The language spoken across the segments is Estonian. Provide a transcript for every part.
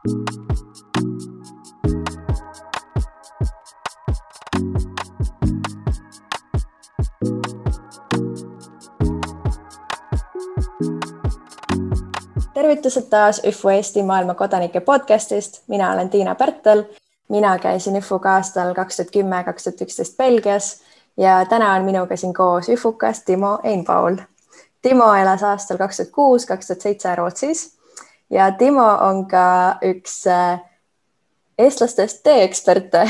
Tervitused taas ÜFU Eesti maailma kodanike podcastist. Mina olen Tiina Pärtel. Mina käisin ÜFUga aastal 2010-2011 Belgias ja täna on minuga siin koos ÜFUkas Timo Einpaul. Timo elas aastal 2006-2007 Rootsis ja Timo on ka üks eestlastest teeeksperte.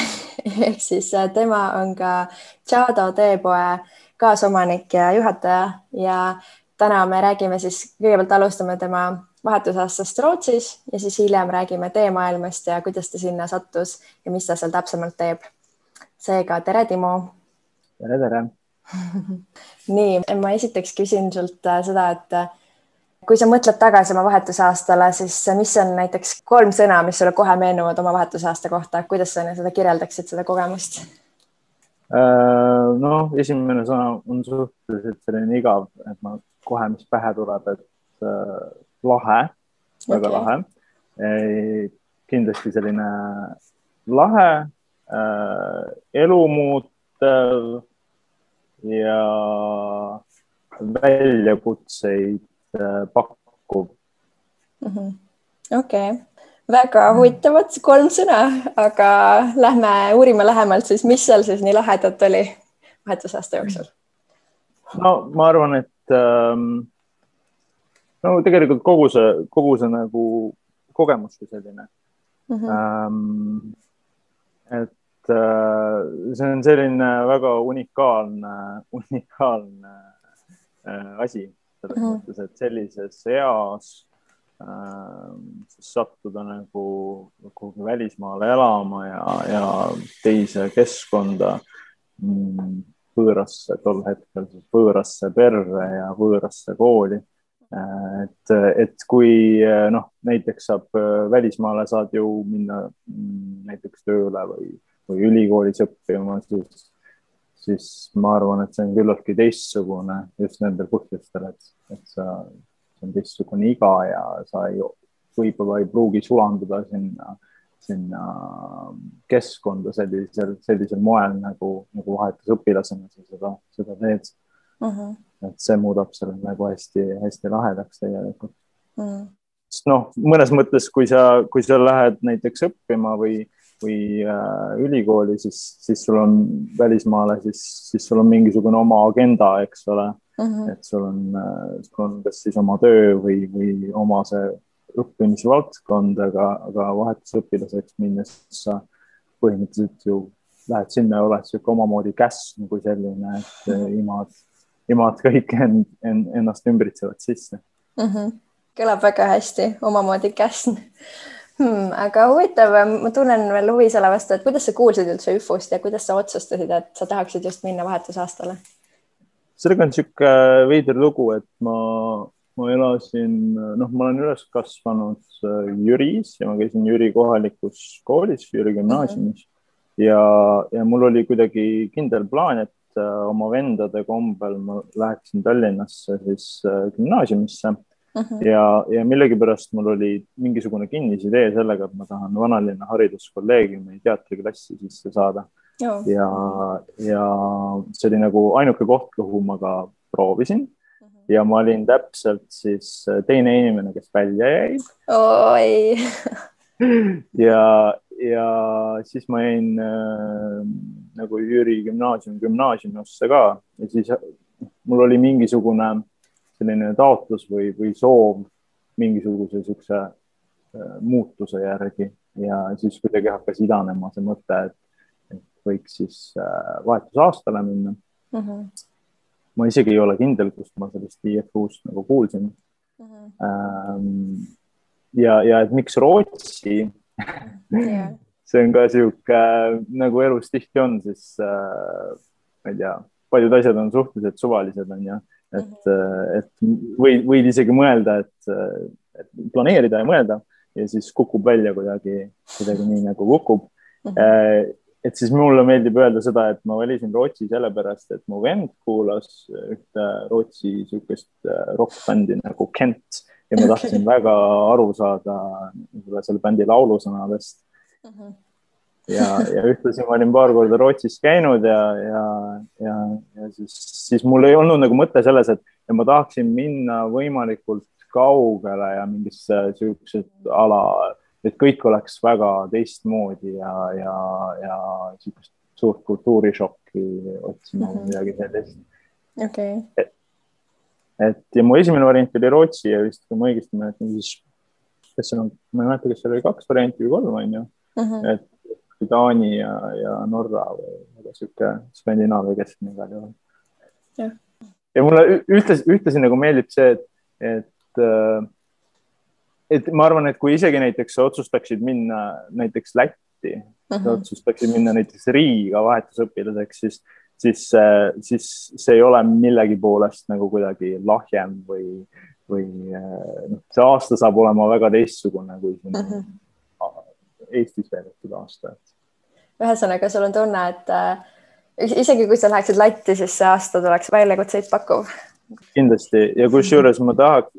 Ehk siis tema on ka Tšado teepoe kaasomanik ja juhataja ja täna me räägime siis, kõigepealt alustame tema vahetusaastast Rootsis ja siis hiljem räägime teemaailmast ja kuidas ta sinna sattus ja mis ta seal täpsemalt teeb. Seega, tere Timo! Tere! Nii, ma esiteks küsin sult seda, et kui sa mõtled tagasi oma vahetusaastale, siis mis on näiteks 3 sõna, mis sulle kohe meenuvad oma vahetusaasta kohta? Kuidas sa seda kirjeldaksid, seda kogemust? No, esimene sõna on suhteliselt selline igav, et ma kohe, mis pähe tuleb, et lahe, väga lahe. Kindlasti selline lahe, elumuutev ja väljakutseid pakkuv. Okei. Väga huvitavad 3 sõna, aga lähme uurime lähemalt siis, mis seal siis nii lahedat oli vahetusaasta jooksul? No, ma arvan, et no tegelikult kogu see nagu kogemus kui selline. Et see on selline väga unikaalne asi selles mõttes, et sellises eas sattuda nagu välismaale elama ja teise keskkonda võõrasse, tol hetkel võõrasse perre ja võõrasse kooli. Et kui näiteks välismaale saad ju minna näiteks tööle või ülikoolis õppima, siis ma arvan, et see on küllaltki teistsugune just nendel põhjustel, et see on teistsugune iga ja sa võib-olla ei pruugi sulanduda sinna keskkonda sellisel moel nagu vahetusõpilasena sa seda teed. Et see muudab selle nagu hästi lahedaks tegelikult. Mõnes mõttes, kui sa lähed näiteks õppima või ülikooli, siis sul on välismaale, siis sul on mingisugune oma agenda, eks ole. Et sul on kas siis oma töö või oma see õppimisvaldkond, aga vahetusõpilaseks minnes sa põhimõtteliselt ju lähed sinna ja oled siuke omamoodi käsn kui selline, et imad kõik ennast ümbritsevad sisse. Kõlab väga hästi, omamoodi käsn. Aga huvitav, ma tunnen veel huvi selle vastu, et kuidas sa kuulsid üldse ÜFUst ja kuidas sa otsustasid, et sa tahaksid just minna vahetusaastale? Sellega on siuke veider lugu, et ma elasin, ma olen üles kasvanud Jüris ja ma käisin Jüri kohalikus koolis, Jüri gümnaasiumis ja mul oli kuidagi kindel plaan, et oma vendade kombel ma läheksin Tallinnasse siis gümnaasiumisse ja millegipärast mul oli mingisugune kinnisidee sellega, et ma tahan Vanalinna hariduskolleegiumi teatriklassi sisse saada. Ja see oli nagu ainuke koht, kuhu ma ka proovisin ja ma olin täpselt siis teine inimene, kes välja jäi. Ja siis ma jäin nagu Jüri gümnaasiumisse ka ja siis mul oli mingisugune selline taotlus või soov mingisuguse siukse muutuse järgi ja siis kuidagi hakkas idanema see mõte, et võiks siis vahetusaastale minna. Ma isegi ei ole kindel, kust ma sellest IFU-st nagu kuulsin. Ja et miks Rootsi? See on ka siuke, nagu elus tihti on, siis ma ei tea, paljud asjad on suhteliselt suvalised, on ja, et võid isegi mõelda, et planeerida ja mõelda ja siis kukub välja kuidagi nii nagu kukub. Et siis mulle meeldib öelda seda, et ma valisin Rootsi sellepärast, et mu vend kuulas ühte Rootsi siukest rock-bändi nagu Kent ja ma tahtsin väga aru saada selle bändi laulusõnadest. Ja ühtlasi ma olin paar korda Rootsis käinud ja siis mul ei olnud nagu mõte selles, et ma tahaksin minna võimalikult kaugele ja mingisse siuksed ala, et kõik oleks väga teistmoodi ja siukest suurt kultuurishokki otsima midagi sellist. Okay. Ja mu esimene variant oli Rootsi ja vist, kui ma õigesti mäletan, siis ma ei mäleta, kas seal oli 2 varianti või 3, on ju. Et Taani ja Norra või siuke Skandinaavia keskne igal juhul. Ja mulle ühtlasi nagu meeldib see, et ma arvan, et kui isegi näiteks otsustaksid minna näiteks Lätti, otsustaksid minna näiteks Riiga vahetusõpilaseks, siis see ei ole millegi poolest nagu kuidagi lahjem või see aasta saab olema väga teistsugune kui siin Eestis veedetud aasta. Ühesõnaga, sul on tunne, et isegi kui sa läheksid Lätti, siis see aasta tuleks väljakutseid pakkuv. Kindlasti. Ja kusjuures ma tahaks,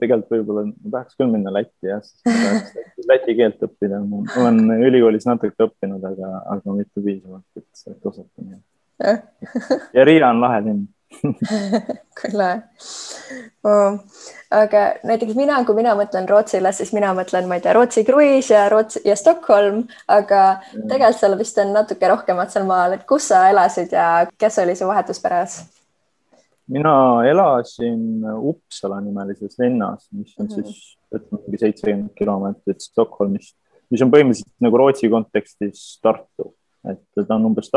tegelikult võib-olla ma tahaks küll minna Lätti, siis läti keelt õppida. Ma olen ülikoolis natuke õppinud, aga mitte piisavalt, et osata. Ja Riia on lahe linn. Küll. Aga näiteks kui mina mõtlen Rootsile, siis mina mõtlen, ma ei tea, Rootsi kruiis ja Stockholm, aga tegelikult seal vist on natuke rohkemat seal maal, et kus sa elasid ja kes oli su vahetusperes? Mina elasin Uppsala nimelises linnas, mis on siis 70 kilomeetrit Stockholmist, mis on põhimõtteliselt nagu Rootsi kontekstis Tartu, et ta on umbes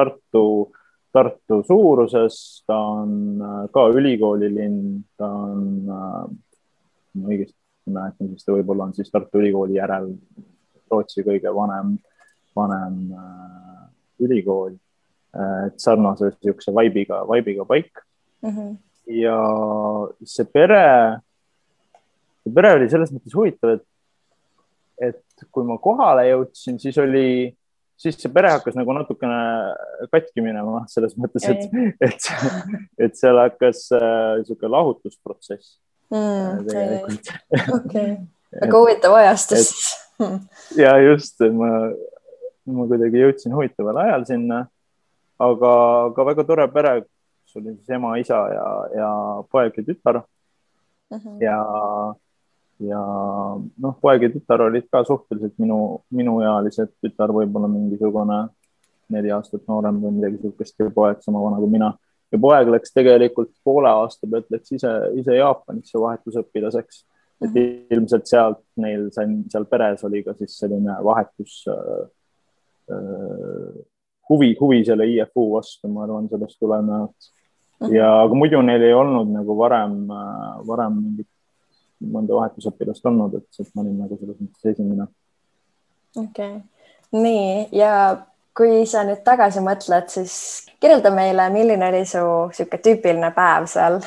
Tartu suuruses, ta on ka ülikoolilinn, ta on, õigesti mäletan, siis ta võib-olla on siis Tartu ülikooli järel Rootsi kõige vanem ülikool, et sarnase siukse vaibiga paik. Ja see pere oli selles mõttes huvitav, et kui ma kohale jõudsin, siis see pere hakkas nagu natukene katki minema selles mõttes, et seal hakkas siuke lahutusprotsess. Väga huvitav ajastus. Ja just, ma kuidagi jõudsin huvitaval ajal sinna, aga väga tore pere, kus oli siis ema, isa ja poeg ja tütar. Ja poeg ja tütar olid ka suhteliselt minuealised, tütar võib-olla mingisugune 4 aastat noorem või midagi sihukest ja poeg sama vana kui mina. Ja poeg läks tegelikult poole aasta pealt, läks ise Jaapanisse vahetusõpilaseks. Et ilmselt sealt neil seal peres oli ka siis selline vahetus huvi selle IFU vastu, ma arvan, sellest tulenevalt. Ja aga muidu neil ei olnud nagu varem mõnda vahetusõpilast olnud, et ma olin nagu selles mõttes esimene. Okay. Nii, ja kui sa nüüd tagasi mõtled, siis kirjelda meile, milline oli su siuke tüüpiline päev seal?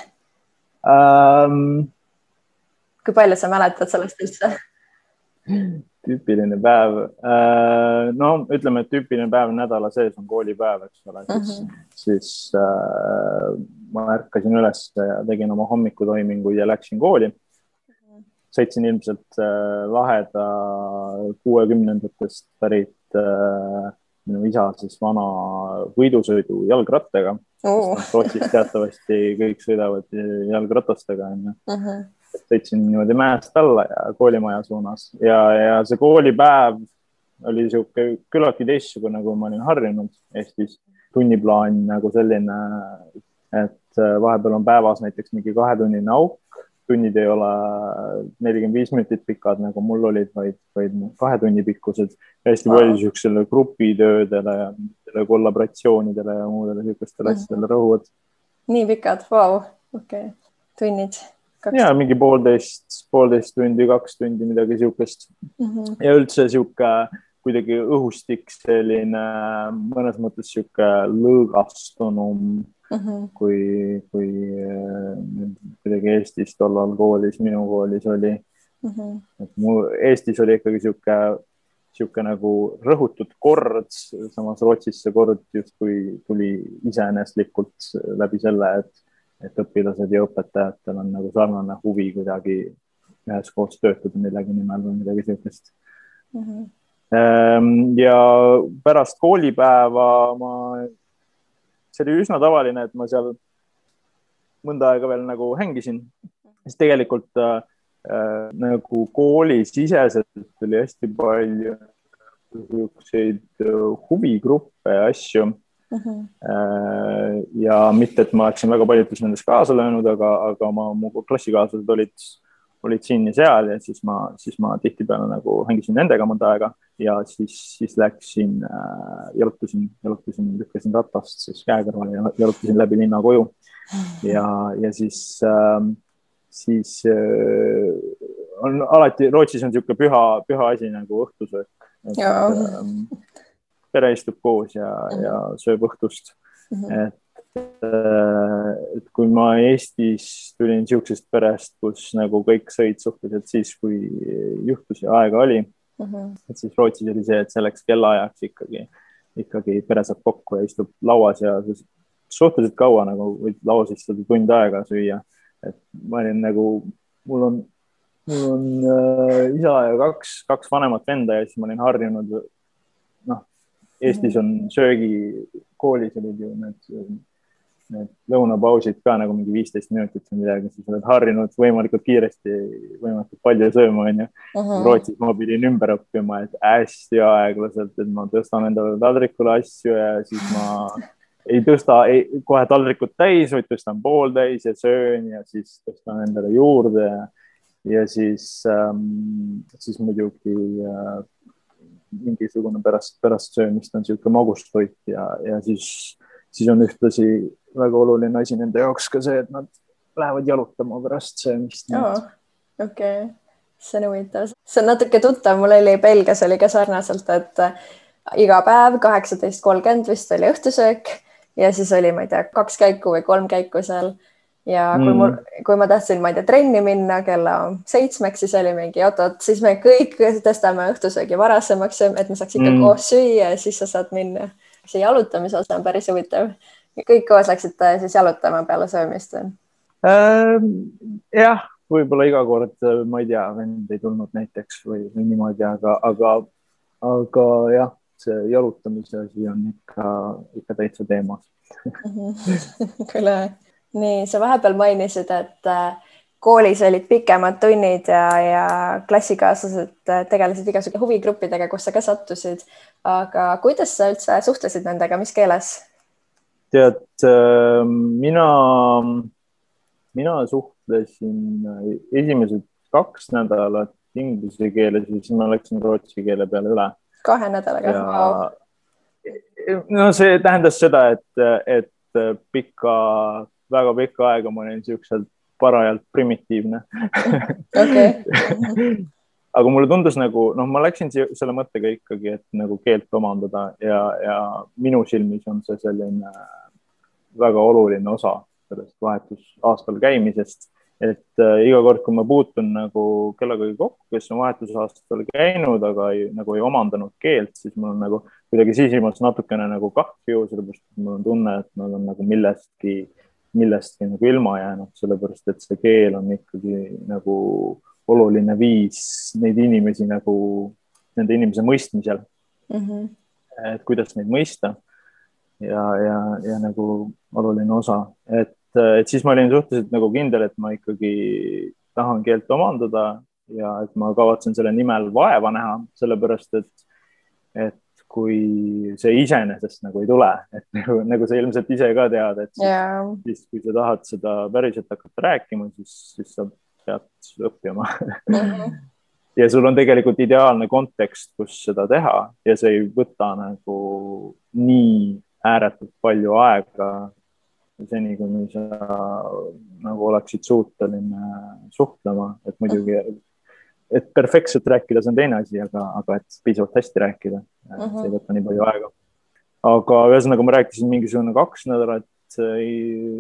Kui palju sa mäletad sellest üldse? Tüüpiline päev. No, ütleme, et tüüpiline päev nädala sees on koolipäev, eks ole. Siis ma ärkasin üles ja tegin oma hommikutoiminguid ja läksin kooli. Sõitsin ilmselt laheda 60-ndatest pärit minu isa siis vana võidusõidu jalgrattaga. Rootsis teatavasti kõik sõidavad jalgratastega. Sõitsin niimoodi mäest alla ja koolimaja suunas. Ja see koolipäev oli siuke küllaltki teistsugune, kui ma olin harjunud Eestis. Tunniplaan nagu selline, et vahepeal on päevas näiteks mingi 2-tunnine auk. Tunnid ei ole 45 minutit pikad, nagu mul olid, vaid 2 tunni pikkused. Hästi palju siuksele grupitöödele ja kollaboratsioonidele ja muudele siukestele asjadele rõhuvad. Nii pikad, vau, okei. Tunnid. Ja mingi 1,5 tundi, 2 tundi, midagi siukest. Ja üldse siuke kuidagi õhustik selline mõnes mõttes siuke lõõgastunum, kui kuidagi Eestis tollal koolis, minu koolis oli. Eestis oli ikkagi siuke nagu rõhutud kord, samas Rootsis see kord just kui tuli iseeneslikult läbi selle, et õpilased ja õpetajatel on nagu sarnane huvi kuidagi üheskoos töötada millegi nimel või midagi sellist. Ja pärast koolipäeva see oli üsna tavaline, et ma seal mõnda aega veel nagu hängisin, siis tegelikult nagu koolisiseselt oli hästi palju selliseid huvigruppe ja asju. Ja mitte, et ma oleksin väga paljudes nendes kaasa löönud, aga mu klassikaaslased olid siin ja seal ja siis ma tihtipeale nagu hängisin nendega mõnda aega ja siis läksin, jalutasin, lükkasin ratast siis käe kõrval ja jalutasin läbi linna koju ja siis on alati, Rootsis on niisugune püha asi nagu õhtusöök. Pere istub koos ja sööb õhtust. Et kui ma Eestis tulin niisugusest perest, kus nagu kõik sõid suhteliselt siis, kui juhtus ja aega oli, et siis Rootsis oli see, et selleks kellaajaks ikkagi pere saab kokku ja istub lauas ja suhteliselt kaua nagu võid lauas istuda tund aega süüa. Et ma olin nagu, mul on isa ja kaks vanemat venda ja siis ma olin harjunud, Eestis on söögikoolis olid ju need lõunapausid ka nagu mingi 15 minutit või midagi, siis oled harjunud võimalikult kiiresti, võimalikult palju sööma, on ju. Rootsis ma pidin ümber õppima, et hästi aeglaselt, et ma tõstan endale taldrikule asju ja siis ma ei tõsta kohe taldrikut täis, vaid tõstan pool täis ja söön ja siis tõstan endale juurde ja siis muidugi mingisugune pärast söömist on niisugune magustoit ja siis on ühtlasi väga oluline asi nende jaoks ka see, et nad lähevad jalutama pärast söömist. Okei. See on huvitav. See on natuke tuttav, mul oli Belgias oli ka sarnaselt, et iga päev 18:30 vist oli õhtusöök ja siis oli, ma ei tea, 2 käiku või 3 käiku seal. Ja kui ma tahtsin, ma ei tea, trenni minna kella 7, siis oli mingi otot, siis me kõik tõstame õhtusöögi varasemaks, et me saaks ikka koos süüa ja siis sa saad minna. See jalutamise osa on päris huvitav. Kõik koos läksite siis jalutama peale söömist? Jah, võib-olla iga kord, ma ei tea, vend ei tulnud näiteks või niimoodi, aga jah, see jalutamise asi on ikka täitsa teemas. Küll. Nii, sa vahepeal mainisid, et koolis olid pikemad tunnid ja klassikaaslased tegelesid igasugu huvigruppidega, kus sa ka sattusid. Aga kuidas sa üldse suhtlesid nendega, mis keeles? Tead, mina suhtlesin esimesed 2 nädalat inglise keeles ja siis ma läksin rootsi keele peale üle. 2 nädalaga? No see tähendas seda, et väga pikka aega ma olin niisugusel parajalt primitiivne. Aga mulle tundus nagu, ma läksin selle mõttega ikkagi, et nagu keelt omandada ja minu silmis on see selline väga oluline osa sellest vahetusaastal käimisest, et iga kord, kui ma puutun nagu kellegagi kokku, kes on vahetusaastal käinud, aga nagu ei omandanud keelt, siis mul on nagu kuidagi sisimas natukene nagu kahju, sellepärast et mul on tunne, et nad on nagu millestki nagu ilma jäänud, sellepärast et see keel on ikkagi nagu oluline viis neid inimesi nagu nende inimese mõistmisel. Et kuidas neid mõista ja nagu oluline osa. Et siis ma olin suhteliselt nagu kindel, et ma ikkagi tahan keelt omandada ja et ma kavatsen selle nimel vaeva näha, sellepärast et kui see iseenesest nagu ei tule, et nagu sa ilmselt ise ka tead, et siis kui sa tahad seda päriselt hakata rääkima, siis sa pead õppima. Ja sul on tegelikult ideaalne kontekst, kus seda teha ja see ei võta nagu nii ääretult palju aega seni, kuni sa nagu oleksid suuteline suhtlema, et muidugi et perfektselt rääkida, see on teine asi, aga et piisavalt hästi rääkida, see ei võta nii palju aega. Aga ühesõnaga ma rääkisin mingisugune 2 nädalat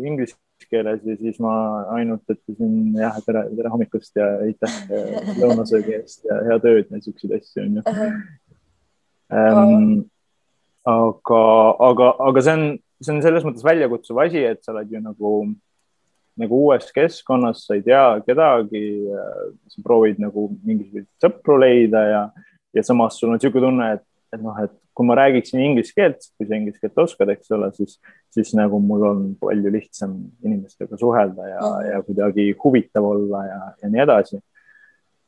inglise keeles ja siis ma ainult ütlesin tere hommikust ja aitäh lõunasöögi eest ja hea tööd ja niisuguseid asju on ju. Aga see on selles mõttes väljakutsuv asi, et sa oled ju nagu nagu uues keskkonnas, sa ei tea kedagi, sa proovid nagu mingisuguseid sõpru leida ja samas sul on niisugune tunne, et noh, et kui ma räägiksin inglise keelt, kui sa inglise keelt oskad, eks ole, siis nagu mul on palju lihtsam inimestega suhelda ja kuidagi huvitav olla ja nii edasi.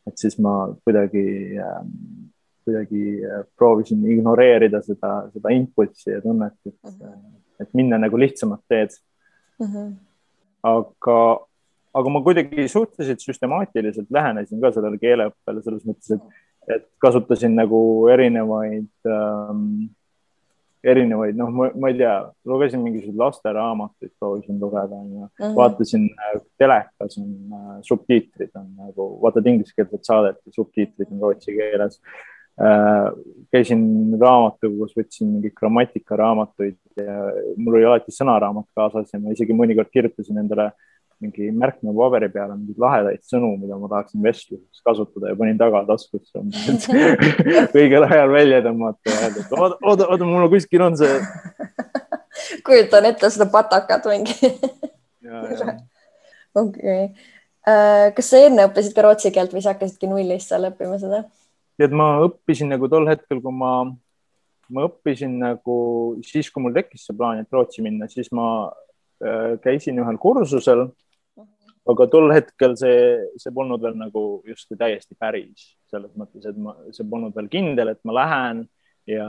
Et siis ma kuidagi proovisin ignoreerida seda impulssi ja tunnet, et minna nagu lihtsamat teed. Aga ma kuidagi suhteliselt süstemaatiliselt lähenesin ka sellele keeleõppele selles mõttes, et kasutasin nagu erinevaid, noh, ma ei tea, lugesin mingisuguseid lasteraamatuid, proovisin lugeda ja vaatasin telekas on subtiitrid on nagu, vaatad ingliskeelset saadet ja subtiitrid on rootsi keeles. Käisin raamatukogus, võtsin mingi grammatikaraamatuid ja mul oli alati sõnaraamat kaasas ja ma isegi mõnikord kirjutasin endale mingi märkme paberi peale mingeid lahedaid sõnu, mida ma tahaksin vestluses kasutada ja panin tagataskusse õigel ajal välja tõmmata ja öelda, et oota, mul kuskil on see. Kujutan ette seda patakat mingi. Okay. Kas sa enne õppisid ka rootsi keelt või sa hakkasidki nullist seal õppima seda? Et ma õppisin nagu tol hetkel, kui ma õppisin nagu siis, kui mul tekkis see plaan, et rootsi minna, siis ma käisin ühel kursusel, aga tol hetkel see polnud veel nagu justkui täiesti päris selles mõttes, et see polnud veel kindel, et ma lähen ja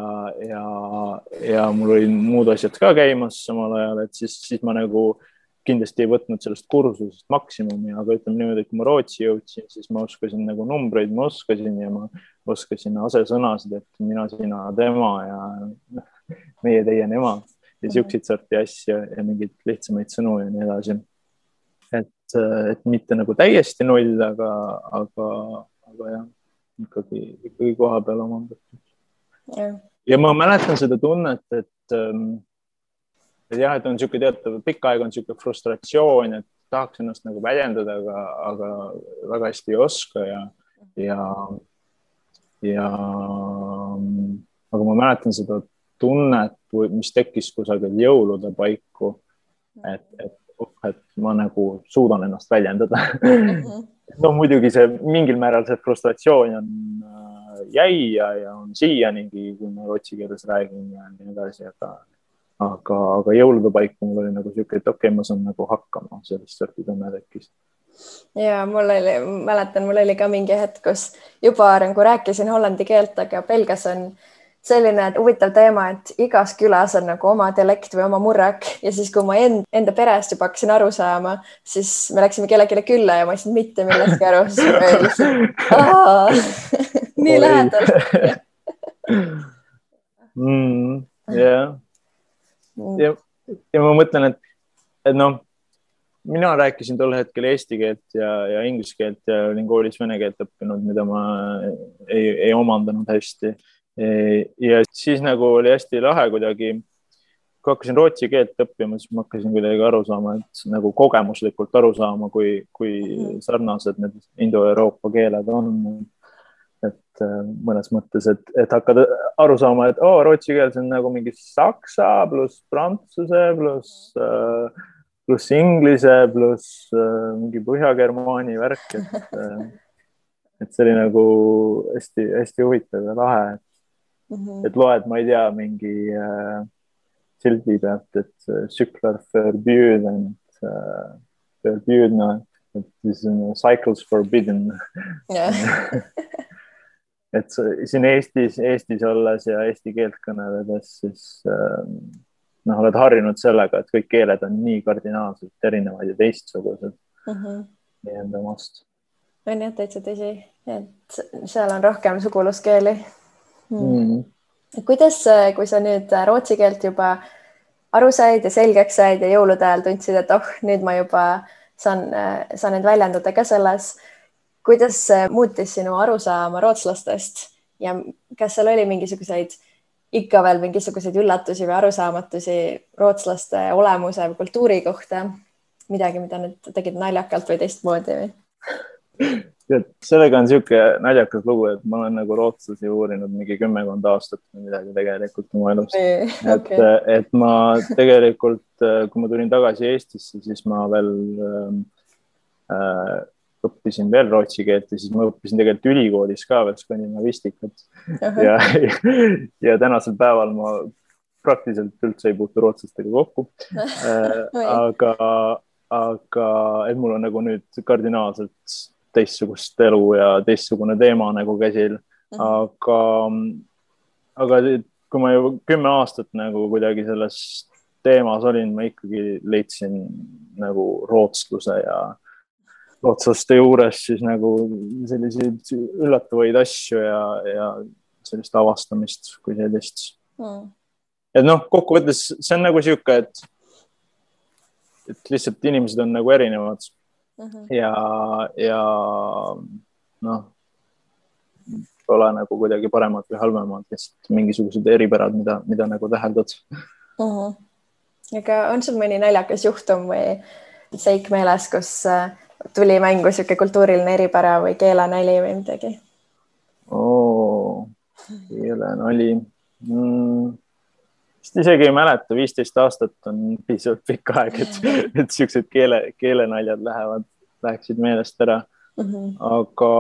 mul oli muud asjad ka käimas samal ajal, et siis ma nagu kindlasti ei võtnud sellest kursusest maksimumi, aga ütleme niimoodi, et kui ma rootsi jõudsin, siis ma oskasin nagu numbreid, ma oskasin ja ma oskasin asesõnasid, et mina, sina, tema ja meie, teie, nema ja siukseid sorti asju ja mingeid lihtsamaid sõnu ja nii edasi. Et mitte nagu täiesti null, aga jah, ikkagi koha peal omandatud. Ja ma mäletan seda tunnet, et jah, et on niisugune teatav, pikka aega on niisugune frustratsioon, et tahaks ennast nagu väljendada, aga väga hästi ei oska aga ma mäletan seda tunnet, mis tekkis kusagil jõulude paiku, et ma nagu suudan ennast väljendada. No muidugi see mingil määral see frustratsioon on jäi ja on siianigi, kui ma rootsi keeles räägin ja nii edasi, aga jõulude paiku mul oli nagu siuke, et okei, ma saan nagu hakkama, sellist sorti tunne tekkis. Ja mäletan, mul oli ka mingi hetk, kus juba nagu rääkisin hollandi keelt, aga Belgias on selline huvitav teema, et igas külas on nagu oma dialekt või oma murrak ja siis, kui ma enda perest juba hakkasin aru saama, siis me läksime kellelegi külla ja ma ei saanud mitte millestki aru, siis ma lihtsalt nii lähedal. Ja ma mõtlen, et noh, mina rääkisin tol hetkel eesti keelt ja inglise keelt ja olin koolis vene keelt õppinud, mida ma ei omandanud hästi. Ja siis nagu oli hästi lahe kuidagi, kui hakkasin rootsi keelt õppima, siis ma hakkasin kuidagi aru saama, et nagu kogemuslikult aru saama, kui sarnased need Indo-Euroopa keeled on. Et mõnes mõttes, et hakkad aru saama, et rootsi keel on nagu mingi saksa pluss prantsuse pluss inglise pluss mingi põhja-germaani värk, et see oli nagu hästi, hästi huvitav ja lahe. Et loed, ma ei tea, mingi sildi pealt, et cyklar förbjuden, et siis on cycles forbidden. Et siin Eestis olles ja eesti keelt kõneledes, siis oled harjunud sellega, et kõik keeled on nii kardinaalselt erinevaid ja teistsugused nii enda omast. On jah, täitsa tõsi, et seal on rohkem suguluskeeli. Kuidas, kui sa nüüd rootsi keelt juba aru said ja selgeks said ja jõulude ajal tundsid, et nüüd ma juba saan end väljendada ka selles, kuidas muutis sinu arusaama rootslastest ja kas seal oli ikka veel mingisuguseid üllatusi või arusaamatusi rootslaste olemuse või kultuuri kohta, midagi, mida nüüd tegid naljakalt või teistmoodi või? sellega on siuke naljakas lugu, et ma olen nagu rootslasi uurinud mingi 10 aastat või midagi tegelikult oma elust. Et ma tegelikult, kui ma tulin tagasi Eestisse, siis ma veel õppisin veel rootsi keelt ja siis ma õppisin tegelikult ülikoolis ka veel skandinavistikat. Ja tänasel päeval ma praktiliselt üldse ei puutu rootslastega kokku. Aga et mul on nagu nüüd kardinaalselt teistsugust elu ja teistsugune teema nagu käsil. Aga kui ma juba 10 aastat nagu kuidagi selles teemas olin, ma ikkagi leidsin nagu rootsluse ja rootslaste juures siis nagu selliseid üllatavaid asju ja sellist avastamist kui sellist. Et noh, kokkuvõttes see on nagu siuke, et lihtsalt inimesed on nagu erinevad. Ja noh, pole nagu kuidagi paremad või halvemad, lihtsalt mingisugused eripärad, mida nagu täheldad. Aga on sul mõni naljakas juhtum või seik meeles, kus tuli mängu siuke kultuuriline eripära või keelenali või midagi? Keelenali. Vist isegi ei mäleta, 15 aastat on piisavalt pikk aeg, et siuksed keelenaljad läheksid meelest ära. Aga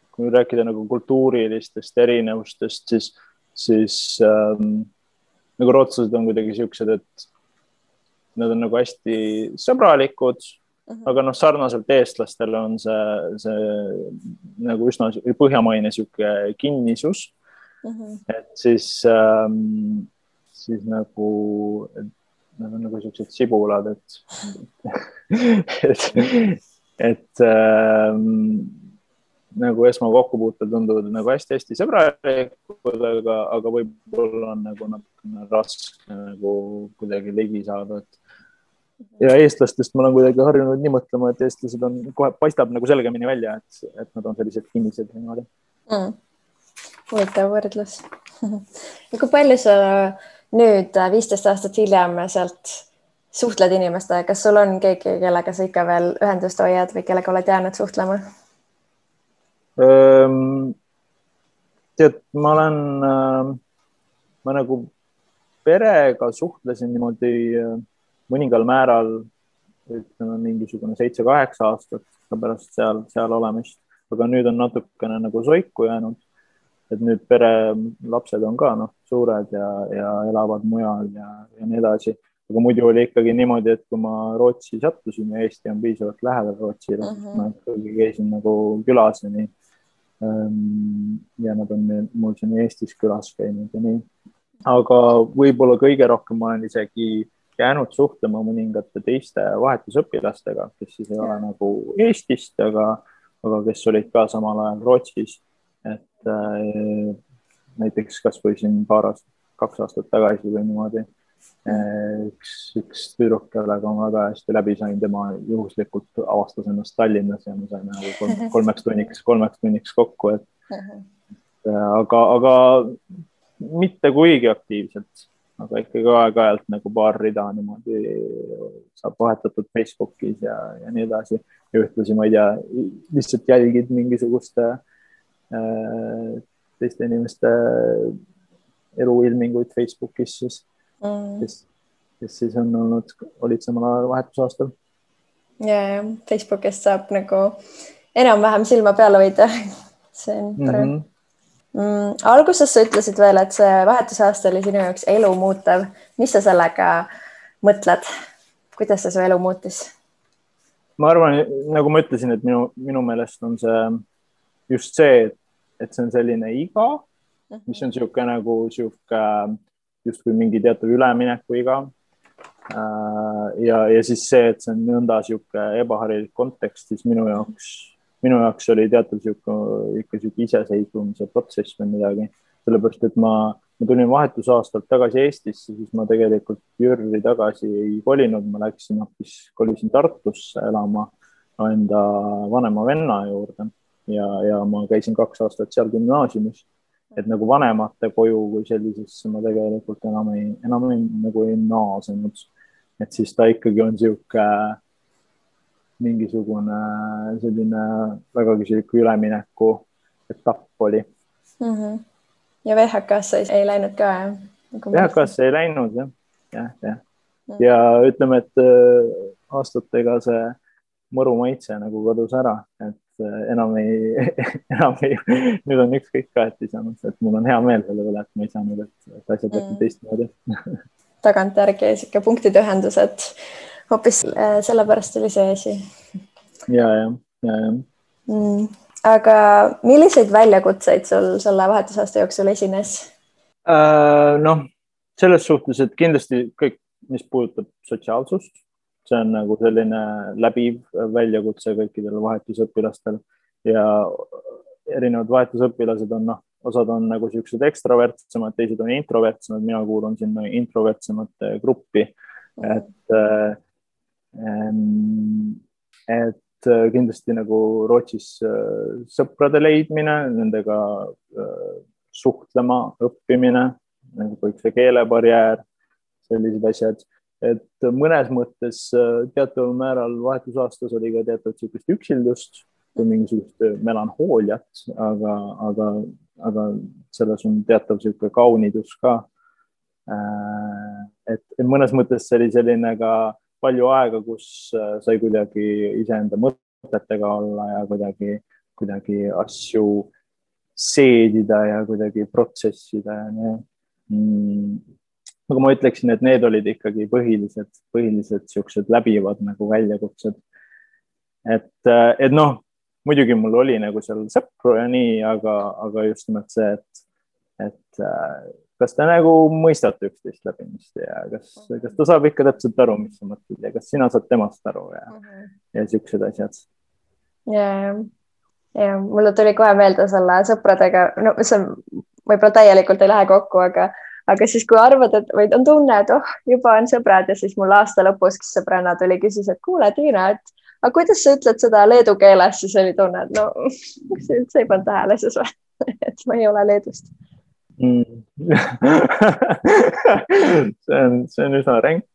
kui rääkida nagu kultuurilistest erinevustest, siis nagu rootslased on kuidagi siuksed, et nad on nagu hästi sõbralikud, aga noh, sarnaselt eestlastele on see nagu üsna põhjamaine siuke kinnisus. Et siis nagu nad on nagu siuksed sibulad, et nagu esmakokkupuutel tunduvad nagu hästi sõbralikud, aga võib-olla on nagu natukene raske nagu kuidagi ligi saada. Ja eestlastest ma olen kuidagi harjunud nii mõtlema, et eestlased on kohe paistab nagu selgemini välja, et nad on sellised kinnised. Huvitav võrdlus. Kui palju sa nüüd 15 aastat hiljem sealt suhtled inimestega? Kas sul on keegi, kellega sa ikka veel ühendust hoiad või kellega oled jäänud suhtlema? Tead, ma nagu perega suhtlesin niimoodi mõningal määral, ütleme mingisugune 7-8 aastat pärast seal olemist, aga nüüd on natukene nagu soiku jäänud. Et nüüd pere lapsed on ka suured ja elavad mujal ja nii edasi. Aga muidu oli ikkagi niimoodi, et kui ma Rootsi sattusin ja Eesti on piisavalt lähedal Rootsile, ma ikkagi käisin nagu külas ja nii. Ja nad on mul siin Eestis külas käinud ja nii. Aga võib-olla kõige rohkem ma olen isegi jäänud suhtlema mõningate teiste vahetusõpilastega, kes siis ei ole nagu Eestist, aga kes olid ka samal ajal Rootsis. Et näiteks kas või siin 2 aastat tagasi või niimoodi üks tüdruk, kellega ma väga hästi läbi sain, tema juhuslikult avastas ennast Tallinnas ja me saime nagu 3 tunniks kokku, aga mitte kuigi aktiivselt, aga ikkagi aeg-ajalt nagu paar rida niimoodi saab vahetatud Facebookis ja nii edasi ja ühtlasi, ma ei tea, lihtsalt jälgid mingisuguste teiste inimeste eluilminguid Facebookis, kes siis olid samal ajal vahetusaastal. Ja Facebookist saab nagu enam-vähem silma peale hoida. See on tore. Alguses sa ütlesid veel, et see vahetusaasta oli sinu jaoks elu muutev. Mis sa sellega mõtled? Kuidas see su elu muutis? Ma arvan, nagu ma ütlesin, et minu meelest on see just see, et see on selline iga, mis on siuke nagu justkui mingi teatud ülemineku iga. Ja siis see, et see on nõnda siuke ebaharilik kontekst, siis minu jaoks oli teatud ikka siuke iseseisvumise protsess või midagi. Sellepärast, et ma tulin vahetusaastalt tagasi Eestisse, siis ma tegelikult Jürri tagasi ei kolinud, ma kolisin Tartusse elama enda vanema venna juurde. Ja ma käisin 2 aastat seal gümnaasiumis, et nagu vanemate koju kui sellisesse ma tegelikult enam ei naasenud. Et siis ta ikkagi on siuke mingisugune selline vägagi selline ülemineku etapp oli. Ja VHK-sse ei läinud ka, jah? VHK-sse ei läinud, jah. Ja ütleme, et aastatega see mõru maitse nagu kadus ära, et enam ei, nüüd on ükskõik ka, et ei saanud, et mul on hea meel selle üle, et ma ei saanud, et asjad läksid teistmoodi. Tagantjärgi siuke punktide ühendus, et hoopis sellepärast oli see asi. Ja. Aga milliseid väljakutseid sul selle vahetusaasta jooksul esines? Noh, selles suhtes, et kindlasti kõik, mis puudutab sotsiaalsust, see on nagu selline läbiv väljakutse kõikidel vahetusõpilastel ja erinevad vahetusõpilased on, osad on nagu siuksed ekstravertsemad, teised on introvertsemad, mina kuulun sinna introvertsemate gruppi, et kindlasti nagu Rootsis sõprade leidmine, nendega suhtlema, õppimine, nagu kõik see keelebarjäär, sellised asjad, et mõnes mõttes teataval määral vahetusaastas oli ka teatavat siukest üksildust või mingisugust melanhooliat, aga selles on teatav siuke kaunidus ka. Et mõnes mõttes see oli selline ka palju aega, kus sai kuidagi iseenda mõtetega olla ja kuidagi asju seedida ja kuidagi protsessida ja nii. Aga ma ütleksin, et need olid ikkagi põhilised siuksed läbivad nagu väljakutsed. Et noh, muidugi mul oli nagu seal sõpru ja nii, aga just nimelt see, et kas te nagu mõistate üksteist läbimist ja kas ta saab ikka täpselt aru, mis sa mõtled ja kas sina saad temast aru ja siuksed asjad. Ja mulle tuli kohe meelde selle sõpradega, no see võib-olla täielikult ei lähe kokku, aga siis kui arvad, et või on tunne, et juba on sõbrad ja siis mul aasta lõpus, kes sõbranna tuli, küsis, et kuule, Tiina, aga kuidas sa ütled seda leedu keeles, siis oli tunne, et no, see üldse ei pannud tähele siis või, et ma ei ole Leedust. See on üsna ränk.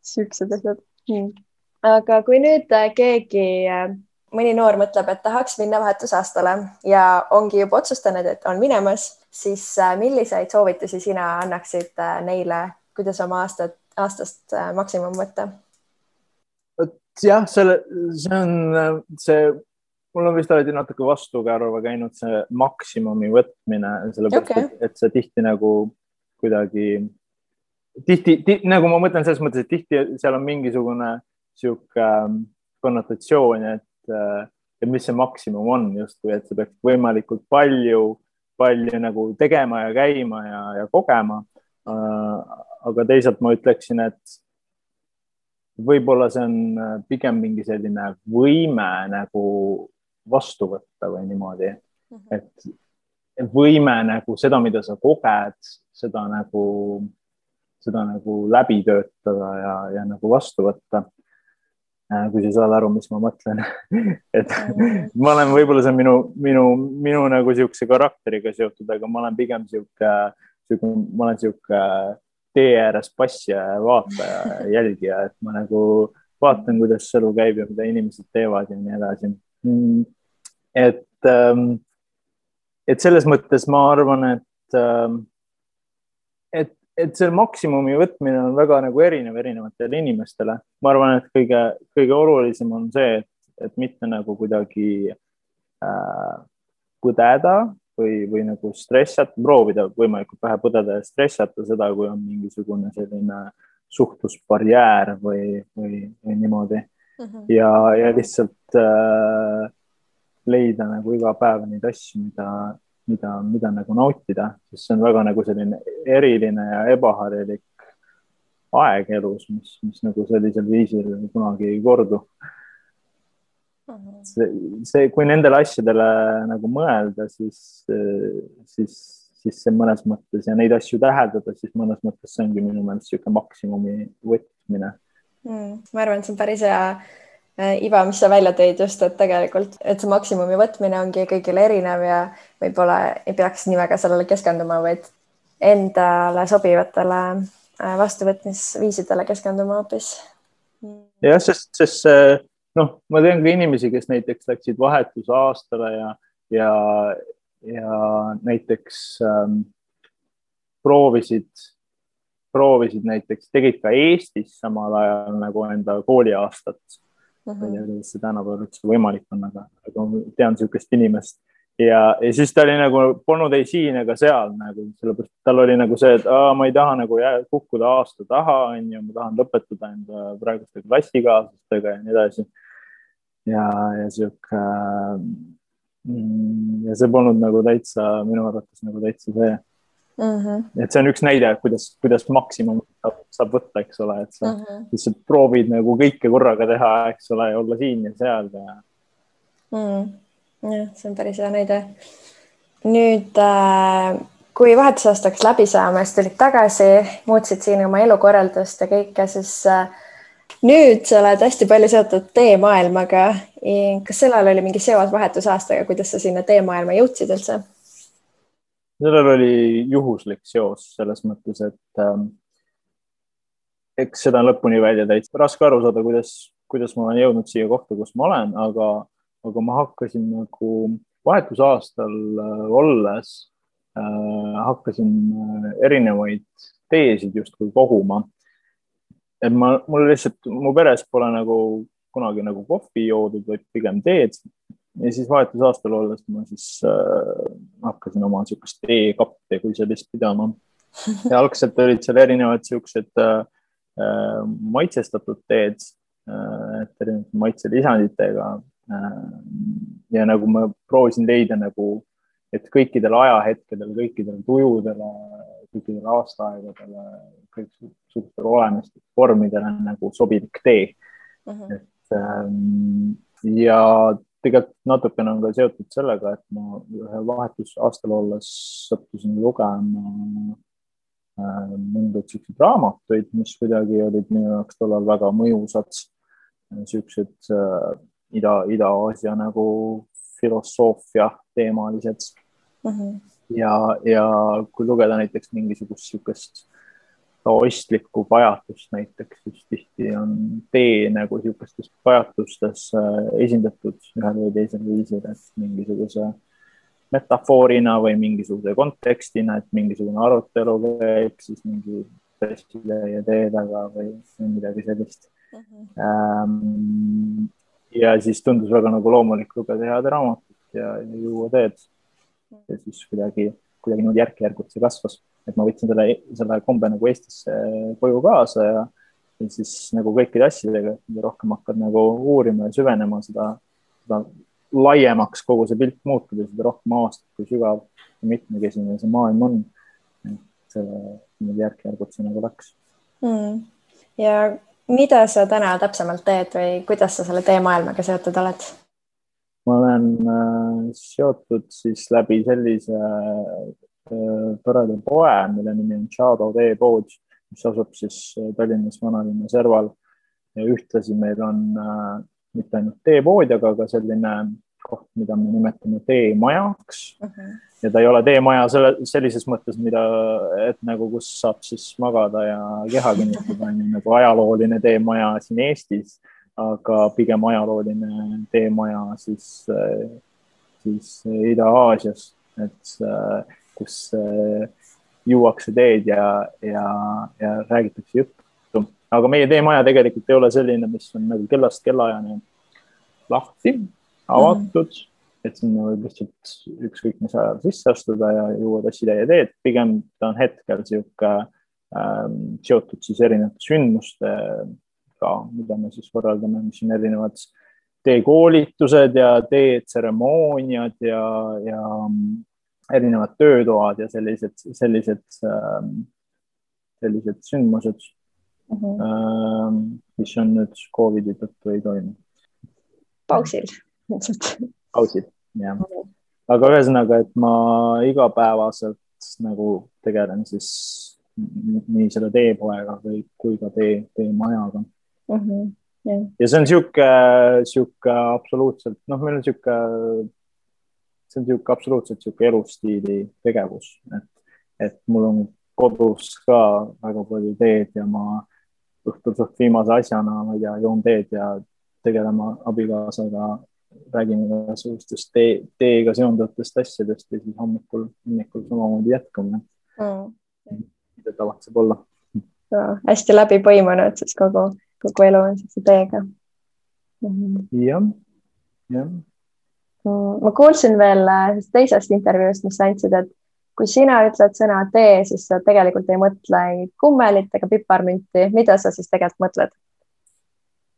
Siuksed asjad. Aga kui nüüd keegi, mõni noor mõtleb, et tahaks minna vahetusaastale ja ongi juba otsustanud, et on minemas, siis milliseid soovitusi sina annaksid neile, kuidas oma aastast maksimum võtta? Jah, mul on vist alati natuke vastukäärva käinud see maksimumi võtmine, sellepärast, et see tihti nagu kuidagi, nagu ma mõtlen selles mõttes, et tihti seal on mingisugune siuke konnotatsioon, et mis see maksimum on justkui, et see peaks võimalikult palju nagu tegema ja käima ja kogema. Aga teisalt ma ütleksin, et võib-olla see on pigem mingi selline võime nagu vastu võtta või niimoodi, et võime nagu seda, mida sa koged, seda nagu läbi töötada ja nagu vastu võtta. Kui sa saad aru, mis ma mõtlen. Et ma olen võib-olla see minu nagu siukse karakteriga seotud, aga ma olen pigem siuke tee ääres passija ja vaataja ja jälgija, et ma nagu vaatan, kuidas elu käib ja mida inimesed teevad ja nii edasi. Et selles mõttes ma arvan, et see maksimumi võtmine on väga nagu erinevatele inimestele. Ma arvan, et kõige olulisem on see, et mitte nagu kuidagi põdeda või nagu stressata, proovida võimalikult vähe põdeda ja stressata seda, kui on mingisugune selline suhtlusbarjäär või niimoodi. Ja lihtsalt leida nagu iga päev neid asju, mida nagu nautida, sest see on väga nagu selline eriline ja ebaharilik aeg elus, mis nagu sellisel viisil kunagi ei kordu. Kui nendele asjadele nagu mõelda, siis see mõnes mõttes ja neid asju täheldada, siis mõnes mõttes see ongi minu meelest siuke maksimumi võtmine. Ma arvan, et see on päris hea Iva, mis sa välja tõid just, et tegelikult, et see maksimumi võtmine ongi kõigile erinev ja võib-olla ei peaks nii väga sellele keskenduma, vaid endale sobivatele vastuvõtmisviisidele keskenduma hoopis. jah, sest noh, ma tean ka inimesi, kes näiteks läksid vahetusaastale ja näiteks proovisid näiteks, tegid ka Eestis samal ajal nagu enda kooliaastat. Ma ei tea, kuidas see tänapäeval üldse võimalik on, aga ma tean niisugust inimest. Ja siis ta oli nagu, polnud ei siin ega seal, nagu, sellepärast tal oli nagu see, et ma ei taha nagu kukkuda aasta taha, ma tahan lõpetada enda praeguste klassikaaslastega ja nii edasi. Ja see polnud nagu täitsa, minu arvates nagu täitsa see. Et see on üks näide, kuidas maksimum saab võtta, eks ole, et sa lihtsalt proovid nagu kõike korraga teha, eks ole, ja olla siin ja seal. Jah, see on päris hea näide. Nüüd, kui vahetusaastaks läbi saama, siis tulid tagasi, muutsid siin oma elukorraldust ja kõike, siis nüüd sa oled hästi palju seotud teemaailmaga. Kas sellel oli mingi seos vahetusaastaga, kuidas sa sinna teemaailma jõudsid üldse? Sellel oli juhuslik seos selles mõttes, et eks seda on lõpuni välja täitsa raske aru saada, kuidas ma olen jõudnud siia kohta, kus ma olen, aga ma hakkasin nagu vahetusaastal olles, hakkasin erinevaid teesid justkui koguma. Et mul lihtsalt, mu peres pole nagu kunagi nagu kohvi joodud, vaid pigem teed. Ja siis vahetusaastal olles ma siis hakkasin oma niisugust teekappe kui sellist pidama. Ja algselt olid seal erinevad niisugused maitsestatud teed, erinevad maitselisanditega. Ja nagu ma proovisin leida nagu, et kõikidel ajahetkedel, kõikidel tujudele, kõikidel aastaaegadele, kõikidel olemist vormidele nagu sobilik tee. Ja tegelikult natukene on ka seotud sellega, et ma ühe vahetusaastal olles sattusin lugema mõndaid selliseid raamatuid, mis kuidagi olid minu jaoks tollal väga mõjusad, sellised Ida-Aasia nagu filosoofia teemalised. Ja kui lugeda näiteks mingisugust taoistlikku pajatust näiteks, siis tihti on tee nagu niisugustes pajatustes esindatud ühel või teisel viisil, et mingisuguse metafoorina või mingisuguse kontekstina, et mingisugune arutelu käib siis mingi pressile ja tee taga või midagi sellist. Ja siis tundus väga nagu loomulik lugeda head raamatut ja juua teed. Ja siis kuidagi nüüd järk-järgult see kasvas. Et ma võtsin selle kombe nagu Eestisse koju kaasa ja siis nagu kõikide asjadega, rohkem hakkad nagu uurima ja süvenema seda laiemaks kogu see pilt muutub ja seda rohkem avastad, kui sügav ja mitmekesine see maailm on. Et järk-järgult see nagu läks. Ja mida sa täna täpsemalt teed või kuidas sa selle teemaailmaga seotud oled? Ma olen seotud siis läbi sellise toreda poe, mille nimi on Shadow teepood, mis asub siis Tallinnas Vanalinna serval ja ühtlasi meil on mitte ainult teepood, aga ka selline koht, mida me nimetame teemajaks. Ja ta ei ole teemaja sellises mõttes, et nagu kus saab siis magada ja keha kinnitada, nagu ajalooline teemaja siin Eestis, aga pigem ajalooline teemaja siis Ida-Aasias, et kus juuakse teed ja räägitakse juttu. Aga meie teemaja tegelikult ei ole selline, mis on nagu kellast kellaajani lahti, avatud, et sinna võib lihtsalt ükskõik mis ajal sisse astuda ja juua tassitäie teed. Pigem ta on hetkel seotud siis erinevate sündmustega, mida me siis võrreldame, mis on erinevad teekoolitused ja teetseremooniad ja erinevad töötoad ja sellised sündmused, mis on nüüd COVID-i tõttu ei toimu. Pausil. Pausil, jah. Aga ühesõnaga, et ma igapäevaselt nagu tegelen siis nii selle teepoega kui ka teemajaga. Ja see on siuke absoluutselt, meil on see on absoluutselt elustiili tegevus, et mul on kodus ka väga palju teed ja ma õhtul suht viimase asjana, ma ei tea, joon teed ja tegelema abikaasaga, räägime igasugustest teega seonduvatest asjadest ja siis hommikul samamoodi jätkame. Mida tavatseb olla. Hästi läbi põimunud, siis kogu elu on teega. Jah. Ma kuulsin veel teisest intervjuust, mis sa andsid, et kui sina ütled sõna tee, siis sa tegelikult ei mõtle kummelit ega piparmünti. Mida sa siis tegelikult mõtled?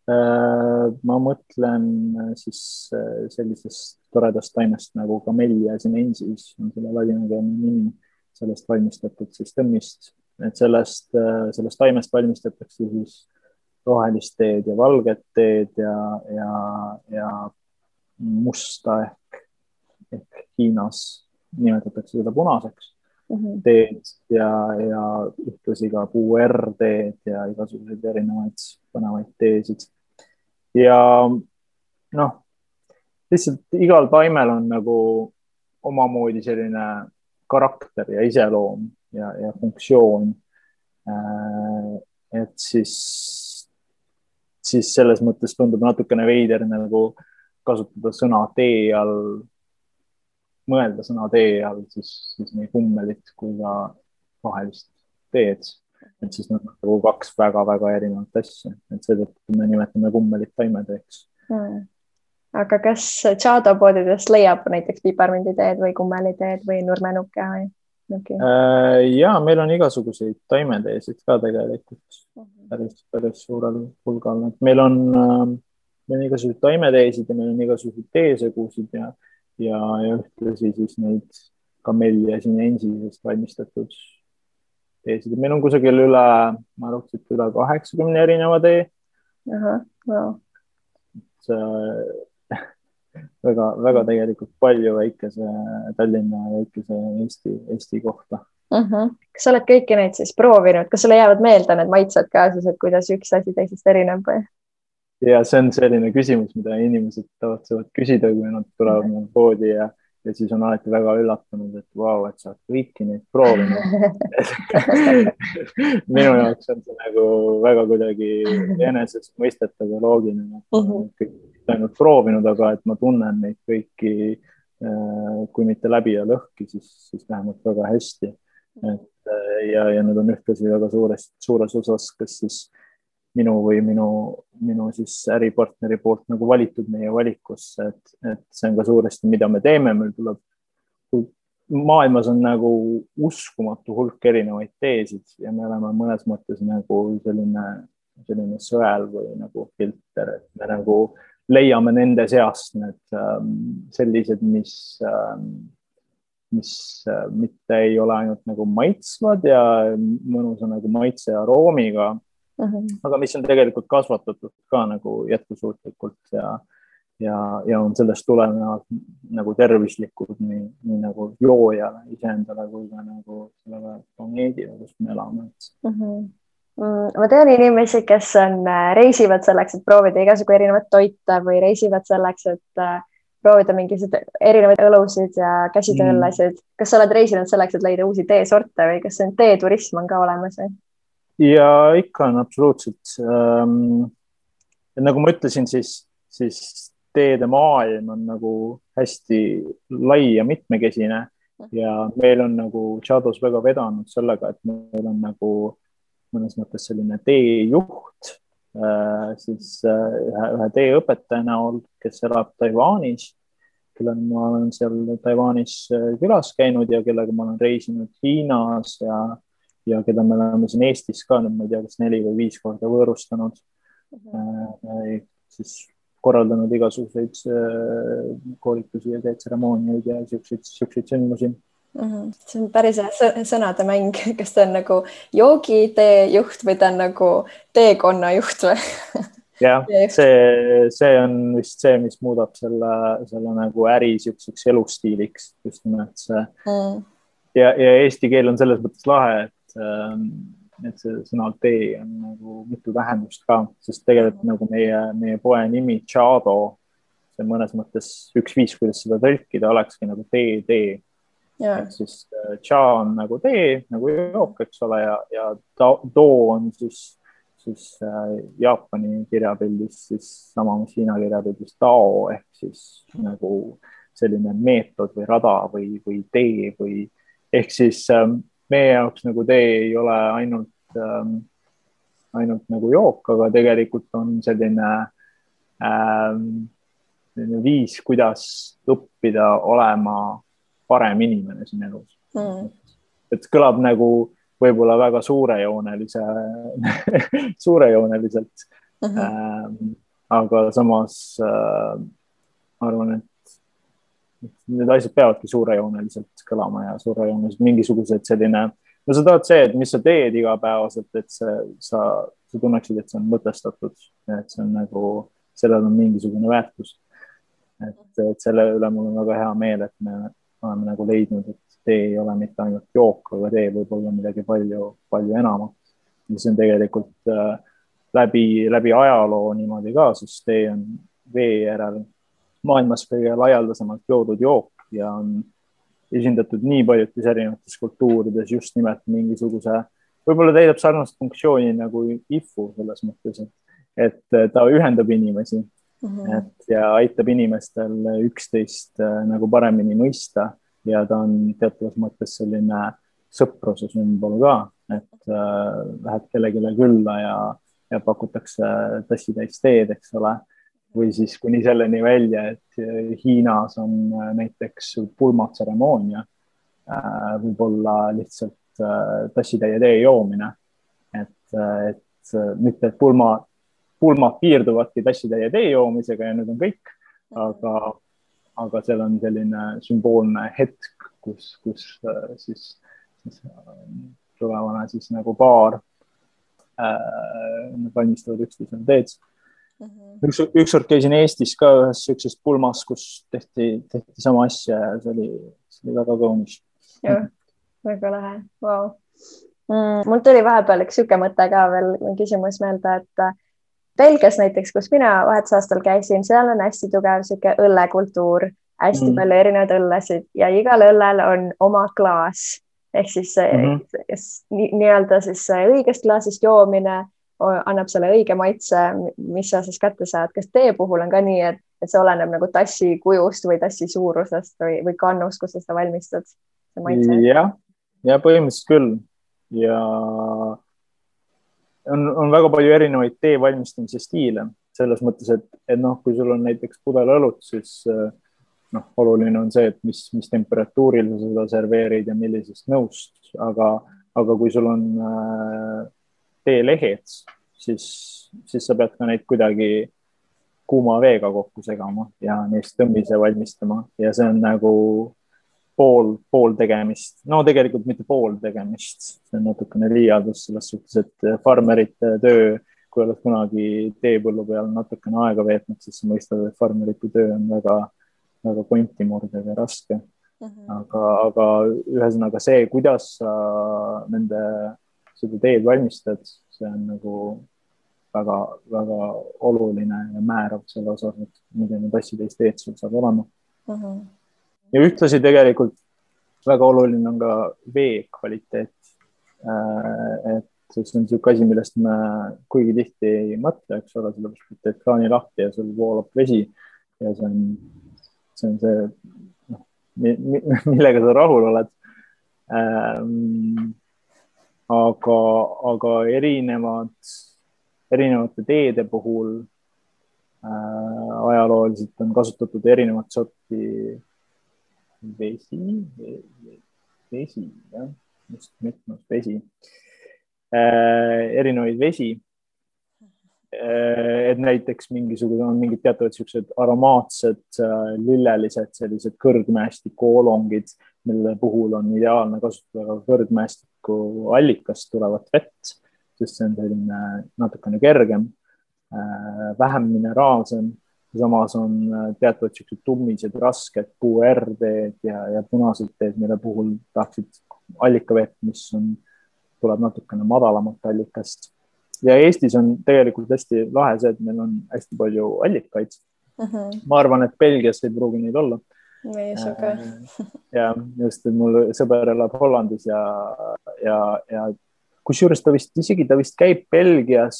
Ma mõtlen siis sellisest toredast taimest nagu Camellia sinensis, on selle ladinakeelne nimi, sellest valmistatud siis tõmmist. Et sellest taimest valmistatakse siis rohelist teed ja valget teed ja musta ehk Hiinas nimetatakse seda punaseks teed ja ühtlasi ka puuerteed ja igasuguseid erinevaid põnevaid teesid. Ja lihtsalt igal taimel on nagu omamoodi selline karakter ja iseloom ja funktsioon. Et siis selles mõttes tundub natukene veider nagu kasutada sõna tee all, mõelda sõna tee all siis nii kummelit kui ka rohelist teed. Et siis nad nagu kaks väga-väga erinevat asja. Et seetõttu me nimetame kummelit taimeteeks. Aga kas Chado poodidest leiab näiteks piparmünditeed või kummeliteed või nurmenuke või? Okay. Ja meil on igasuguseid taimeteesid ka tegelikult päris suurel hulgal. Et meil on igasuguseid taimeteesid ja meil on igasuguseid teesegusid ja ühtlasi siis neid Camellia sinensisest valmistatud teesid. Meil on kusagil üle 80 erineva tee. Wow. Väga tegelikult palju väikese Tallinna ja väikese Eesti kohta. Kas sa oled kõiki neid siis proovinud? Kas sulle jäävad meelde need maitsed ka siis, et kuidas üks asi teisest erineb või? Ja see on selline küsimus, mida inimesed tavatsevad küsida, kui nad tulevad meil poodi ja siis on alati väga üllatunud, et vau, et sa oled kõiki neid proovinud. Minu jaoks on see nagu väga kuidagi enesest mõistetav ja loogiline. Kõik ainult proovinud, aga et ma tunnen neid kõiki, kui mitte läbi ja lõhki, siis vähemalt väga hästi. Ja need on ühtlasi väga suures osas, kas siis minu või minu siis äripartneri poolt nagu valitud meie valikusse, et see on ka suuresti, mida me teeme. Meil tuleb, maailmas on nagu uskumatu hulk erinevaid teesid ja me oleme mõnes mõttes nagu selline sõel või nagu filter, et me nagu leiame nende seast need sellised, mis mitte ei ole ainult nagu maitsvad ja mõnusa nagu maitse ja aroomiga, aga mis on tegelikult kasvatatud ka nagu jätkusuutlikult ja on sellest tulenevalt nagu tervislikud nii nagu joojale iseendale kui ka nagu sellele planeedile, kus me elame. Ma tean inimesi, kes reisivad selleks, et proovida igasugu erinevat toite või reisivad selleks, et proovida mingisuguseid erinevaid õlusid ja käsitööõllesid. Kas sa oled reisinud selleks, et leida uusi teesorte või kas see teeturism on ka olemas? Ja ikka on absoluutselt. Nagu ma ütlesin, siis teede maailm on nagu hästi lai ja mitmekesine ja meil on nagu Chados väga vedanud sellega, et meil on nagu mõnes mõttes selline teejuht, siis ühe teeõpetaja näol, kes elab Taiwanis, kellega ma olen seal Taiwanis külas käinud ja kellega ma olen reisinud Hiinas ja keda me oleme siin Eestis ka, ma ei tea, kas 4 või 5 korda võõrustanud, siis korraldanud igasuguseid koolitusi ja tseremooniaid ja siukseid sündmusi. See on päris sõnade mäng, kas ta on nagu joogiteejuht või ta on nagu teekonna juht või? Jah, see on vist see, mis muudab selle nagu äri siukseks elustiiliks just nimelt see. Ja eesti keel on selles mõttes lahe, et see sõna tee on nagu mitu tähendust ka, sest tegelikult nagu meie poe nimi Chado, see mõnes mõttes üks viis, kuidas seda tõlkida, olekski nagu tee. Et siis cha on nagu tee, nagu jook, eks ole, ja do on siis siis Jaapani kirjapildis siis sama, mis Hiina kirjapildis Tao ehk siis nagu selline meetod või rada või tee või ehk siis meie jaoks nagu tee ei ole ainult nagu jook, aga tegelikult on selline viis, kuidas õppida olema parem inimene siin elus. Et kõlab nagu võib-olla väga suurejooneliselt. Aga samas ma arvan, et need asjad peavadki suurejooneliselt kõlama ja suurejooneliselt mingisugused selline, no sa tahad see, et mis sa teed igapäevaselt, et sa tunneksid, et see on mõtestatud, et see on nagu, sellel on mingisugune väärtus. Et selle üle mul on väga hea meel, et me oleme nagu leidnud, et tee ei ole mitte ainult jook, aga tee võib olla midagi palju, palju enamat. Ja see on tegelikult läbi ajaloo niimoodi ka, sest tee on vee järel maailmas kõige laialdasemalt joodud jook ja on esindatud nii paljudes erinevates kultuurides just nimelt mingisuguse, võib-olla täidab sarnast funktsiooni nagu ifu selles mõttes, et ta ühendab inimesi ja aitab inimestel üksteist nagu paremini mõista. Ja ta on teatavas mõttes selline sõpruse sümbol ka, et lähed kellegile külla ja pakutakse tassitäis teed, eks ole. Või siis kuni selleni välja, et Hiinas on näiteks pulmatseremoonia, võib-olla lihtsalt tassitäie tee joomine. Et mitte, et pulmad piirduvadki tassitäie tee joomisega ja nüüd on kõik, aga seal on selline sümboolne hetk, kus siis tulevane siis nagu paar valmistavad üksteisele teed. Ükskord käisin Eestis ka ühes sellises pulmas, kus tehti sama asja ja see oli väga kaunis. Jah, väga lahe. Wow. Mul tuli vahepeal üks süke mõte ka veel küsimus meelde, et Belgias näiteks, kus mina vahetusaastal käisin, seal on hästi tugev siuke õllekultuur, hästi palju erinevaid õllesid ja igal õllel on oma klaas. Ehk siis nii-öelda siis õigest klaasist joomine annab selle õige maitse, mis sa siis kätte saad. Kas tee puhul on ka nii, et see oleneb nagu tassi kujust või tassi suurusest või kannust, kus sa seda valmistad? Ja põhimõtteliselt küll. Ja on väga palju erinevaid tee valmistamise stiile. Selles mõttes, et kui sul on näiteks pudel õlut, siis oluline on see, et mis temperatuuril sa seda serveerid ja millisest nõust. Aga kui sul on teelehed, siis sa pead ka neid kuidagi kuuma veega kokku segama ja neist tõmbise valmistama. Ja see on nagu pool tegemist. No tegelikult mitte pool tegemist. See on natukene liialdus selles suhtes, et farmerite töö, kui oled kunagi teepõllu peal natukene aega veetnud, siis sa mõistad, et farmerite töö on väga kontimurdev ja raske. Aga ühesõnaga see, kuidas sa seda teed valmistad, see on nagu väga, väga oluline ja määrav selle osas, et milline tassitäis teed sul saab olema. Ja ühtlasi tegelikult väga oluline on ka vee kvaliteet. Et see on selline asi, millest me kuigi tihti ei mõtle, eks ole, sellepärast, et teed kraani lahti ja sul voolab vesi ja see on see, millega sa rahul oled. Aga erinevate teede puhul ajalooliselt on kasutatud erinevat sorti vesi, jah, just mitmes vesi, erinevaid vesi, et näiteks on mingid teatavad siuksed aromaatsed, lillelised, sellised kõrgmäestikuolongid, mille puhul on ideaalne kasutada kõrgmäestiku allikast tulevat vett, sest see on selline natukene kergem, vähem mineraalsem. Samas on teatavad siuksed tummised, rasked puuerteed ja punased teed, mille puhul tahaksid allikavett, mis tuleb natukene madalamalt allikast. Ja Eestis on tegelikult hästi lahe see, et meil on hästi palju allikaid. Ma arvan, et Belgias ei pruugi neid olla. Ja just, et mul sõber elab Hollandis ja kusjuures ta vist käib Belgias,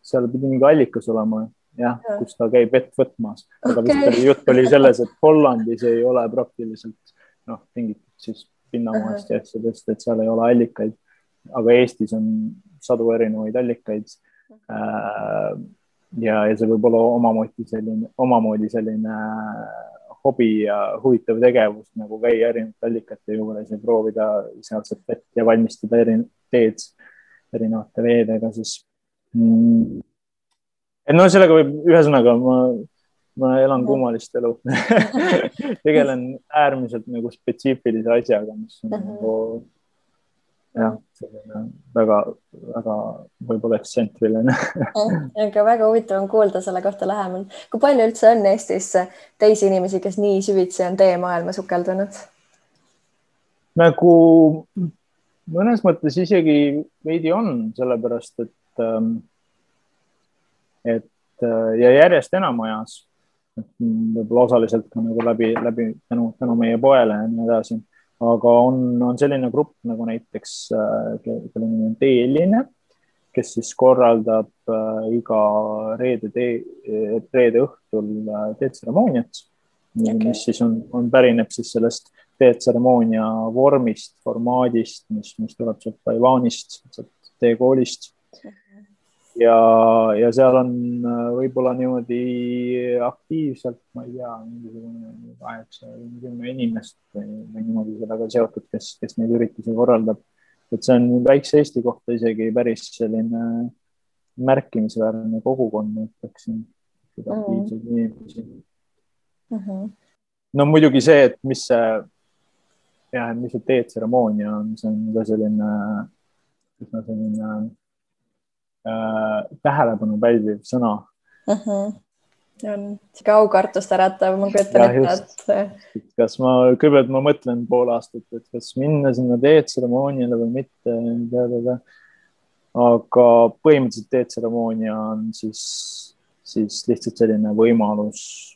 seal pidi mingi allikas olema, jah, kus ta käib vett võtmas, aga vist jutt oli selles, et Hollandis ei ole praktiliselt tingitud siis pinnamaast ja asjadest, et seal ei ole allikaid, aga Eestis on sadu erinevaid allikaid. Ja see võib olla omamoodi selline hobi ja huvitav tegevus, nagu käia erinevate allikate juures ja proovida sealset vett ja valmistada teed erinevate veedega siis. Sellega võib, ühesõnaga ma elan kummalist elu. Tegelen äärmiselt nagu spetsiifilise asjaga, mis on nagu väga võib-olla ekstsentriline. Aga väga huvitav on kuulda selle kohta lähemal. Kui palju üldse on Eestis teisi inimesi, kes nii süvitsi on teemaailma sukeldunud? Nagu mõnes mõttes isegi veidi on, sellepärast, et ja järjest enam ajas, võib-olla osaliselt ka nagu läbi tänu meie poele ja nii edasi. Aga on selline grupp nagu näiteks, kelle nimi on Teeline, kes siis korraldab iga reede õhtul teetseremooniat, mis siis on pärineb siis sellest teetseremoonia vormist, formaadist, mis tuleb sealt Taiwanist, teekoolist. Ja seal on võib-olla niimoodi aktiivselt, ma ei tea, mingisugune 8-10 inimest või niimoodi sellega seotud, kes neid üritusi korraldab. Et see on väikse Eesti kohta isegi päris selline märkimisväärne kogukond, ütleksin, aktiivseid inimesi. No muidugi see, et mis see teetseremoonia on, see on ka selline tähelepanu pälviv sõna. On siga aukartust äratav, ma kujutan ette. Kas ma mõtlen pool aastat, et kas minna sinna teetseremooniale või mitte. Aga põhimõtteliselt teetseremoonia on siis lihtsalt selline võimalus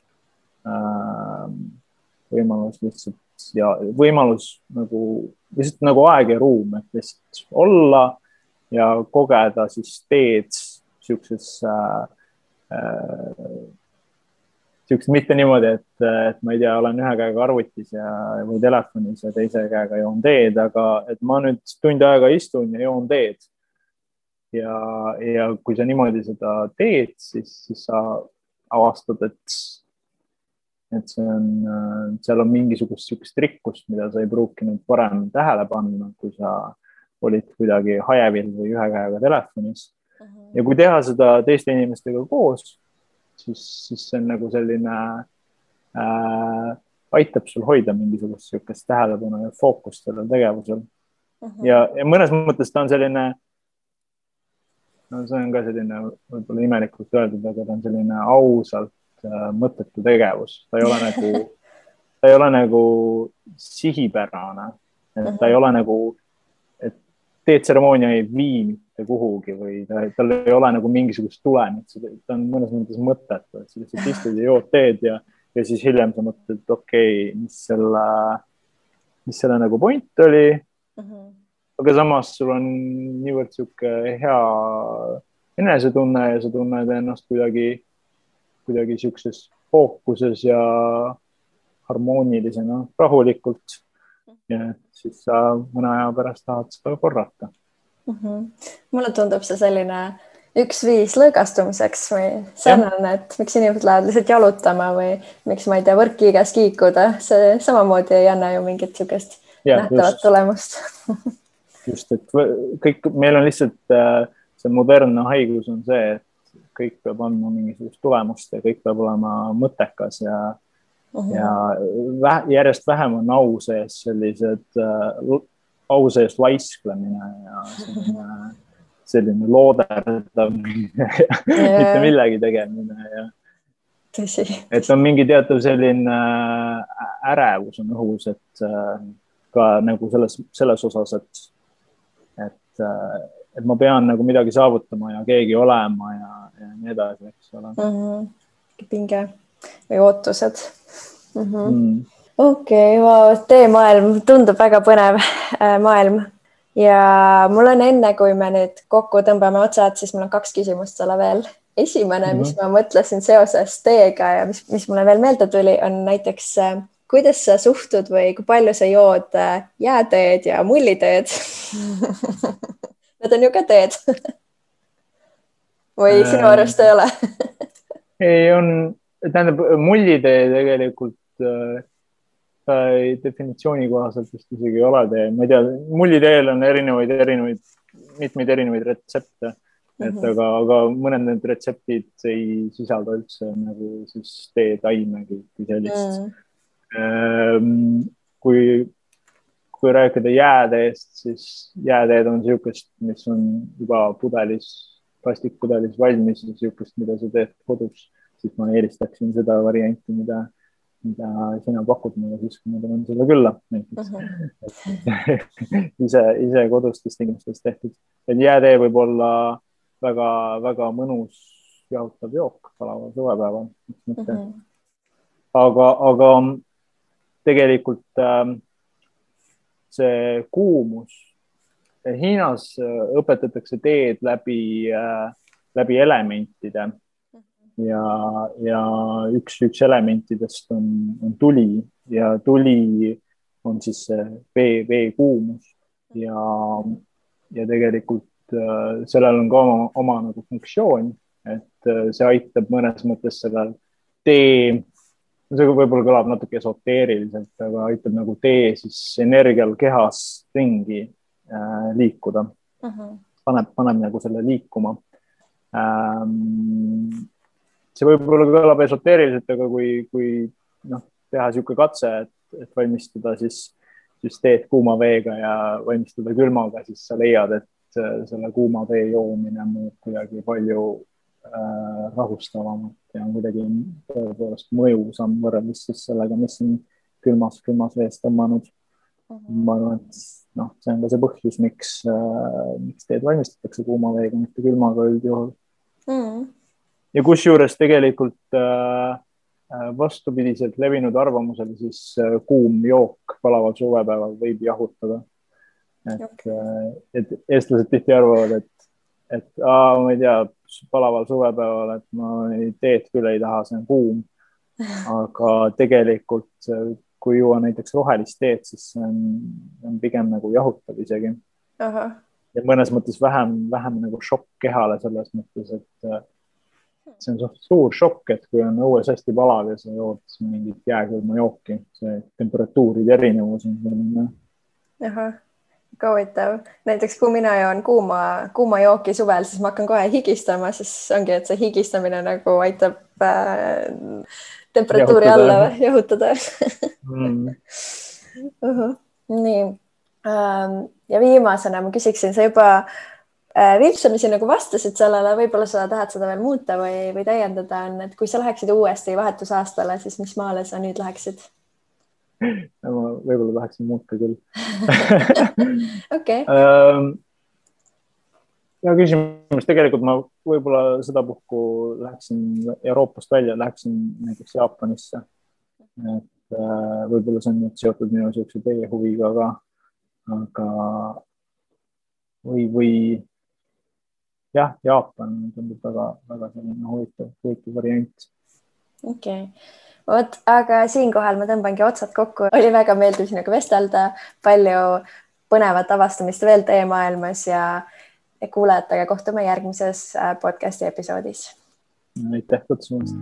lihtsalt ja võimalus lihtsalt nagu aeg ja ruum, et lihtsalt olla ja kogeda siis teed siukses mitte niimoodi, et ma ei tea, olen ühe käega arvutis või telefonis ja teise käega joon teed, aga et ma nüüd tund aega istun ja joon teed. Ja kui sa niimoodi seda teed, siis sa avastad, et seal on mingisugust siukest rikkust, mida sa ei pruukinud varem tähele panna, kui sa olid kuidagi hajevil või ühe käega telefonis. Ja kui teha seda teiste inimestega koos, siis see on nagu selline aitab sul hoida mingisugust siukest tähelepanu ja fookust sellel tegevusel. Ja mõnes mõttes ta on selline, see on ka selline võib-olla imelikult öeldud, aga ta on selline ausalt mõttetu tegevus. Ta ei ole nagu sihipärane, et ta ei ole nagu teetseremoonia ei vii mitte kuhugi või tal ei ole nagu mingisugust tulemit, ta on mõnes mõttes mõttetu, et sa lihtsalt istud ja jood teed ja siis hiljem sa mõtled, et okei, mis selle nagu point oli, aga samas sul on niivõrd siuke hea enesetunne ja sa tunned ennast kuidagi siukses fookuses ja harmoonilisena, rahulikult. Ja siis sa mõne aja pärast tahad seda korrata. Mulle tundub see selline üks viis lõõgastumiseks või sarnane, et miks inimesed lähevad lihtsalt jalutama või miks ma ei tea, võrkkiigas kiikuda. See samamoodi ei anna ju mingit siukest nähtavat tulemust. Just, et meil on lihtsalt see modernne haigus on see, et kõik peab andma mingisugust tulemust ja kõik peab olema mõttekas ja järjest vähem on au sees laisklemine ja selline looderdamine mitte millegi tegemine. Et on mingi teatav selline ärevus on õhus, et ka nagu selles osas, et ma pean nagu midagi saavutama ja keegi olema ja nii edasi, eks ole. Pinge või ootused. Okei, teemaailm tundub väga põnev maailm. ja mul on enne, kui me nüüd kokku tõmbame otsad, siis mul on 2 küsimust sulle veel. Esimene, mis ma mõtlesin seoses teega ja mis mulle veel meelde tuli, on näiteks, kuidas sa suhtud või kui palju sa jood jääteed ja mulliteed? Need on ju ka teed. Või sinu arust ei ole? Ei, tähendab, mullitee tegelikult definitsiooni kohaselt vist isegi ei ole tee. Ma ei tea, mulliteel on mitmeid erinevaid retsepte, aga mõned need retseptid ei sisalda üldse nagu siis teetaimegi kui sellist. Kui rääkida jääteest, siis jääteed on niisugust, mis on juba plastikpudelis valmis ja niisugust, mida sa teed kodus, siis ma eelistaksin seda varianti, mida sina pakud mulle siis, kui ma tulen sulle külla. ise kodustes tingimustes tehtud. Et jäätee võib olla väga mõnus jahutav jook palaval suvepäeval. Aga tegelikult see kuumus, Hiinas õpetatakse teed läbi elementide. Ja üks elementidest on tuli ja tuli on siis see vee kuumus ja tegelikult sellel on ka oma nagu funktsioon, et see aitab mõnes mõttes sellel tee, see võib-olla kõlab natuke esoteeriliselt, aga aitab nagu tee siis energial kehas ringi liikuda. Paneb nagu selle liikuma. See võib-olla kõlab esoteeriliselt, aga kui teha niisugune katse, et valmistada siis teed kuuma veega ja valmistada külmaga, siis sa leiad, et selle kuuma vee joomine muud kuidagi palju rahustavamalt ja on kuidagi tõepoolest mõjusam võrreldes siis sellega, mis on külmas vees tõmmanud. Ma arvan, et see on ka see põhjus, miks teed valmistatakse kuuma veega, mitte külmaga üldjuhul. Ja kusjuures tegelikult vastupidiselt levinud arvamusel siis kuum jook palaval suvepäeval võib jahutada. Et eestlased tihti arvavad, et ma ei tea, palaval suvepäeval, et ma teed küll ei taha, see on kuum. Aga tegelikult, kui juua näiteks rohelist teed, siis see on pigem nagu jahutav isegi. Ja mõnes mõttes vähem nagu šokk kehale selles mõttes, et see on suur šokk, et kui on õues hästi palav ja sa jood mingit jääkülma jooki, see temperatuuride erinevus on selline. Huvitav. Näiteks kui mina joon kuuma jooki suvel, siis ma hakkan kohe higistama, siis ongi, et see higistamine nagu aitab temperatuuri alla jahutada. Nii. Ja viimasena ma küsiksin, sa juba vilpsamisi nagu vastasid sellele, võib-olla sa tahad seda veel muuta või täiendada on, et kui sa läheksid uuesti vahetusaastale, siis mis maale sa nüüd läheksid? Ma võib-olla tahaksin muuta küll. Okay. Ja küsimus, tegelikult ma võib-olla seda puhku läheksin Euroopast välja, läheksin näiteks Jaapanisse. Et võib-olla see on nüüd seotud minu siukse teie huviga, aga või jah, Jaapan tundub väga selline huvitav variant. Okay. Aga siinkohal ma tõmbangi otsad kokku. Oli väga meeldiv sinuga vestelda, palju põnevat avastamist veel teie maailmas ja kuulajatega kohtume järgmises podcasti episoodis. Aitäh kutsumast.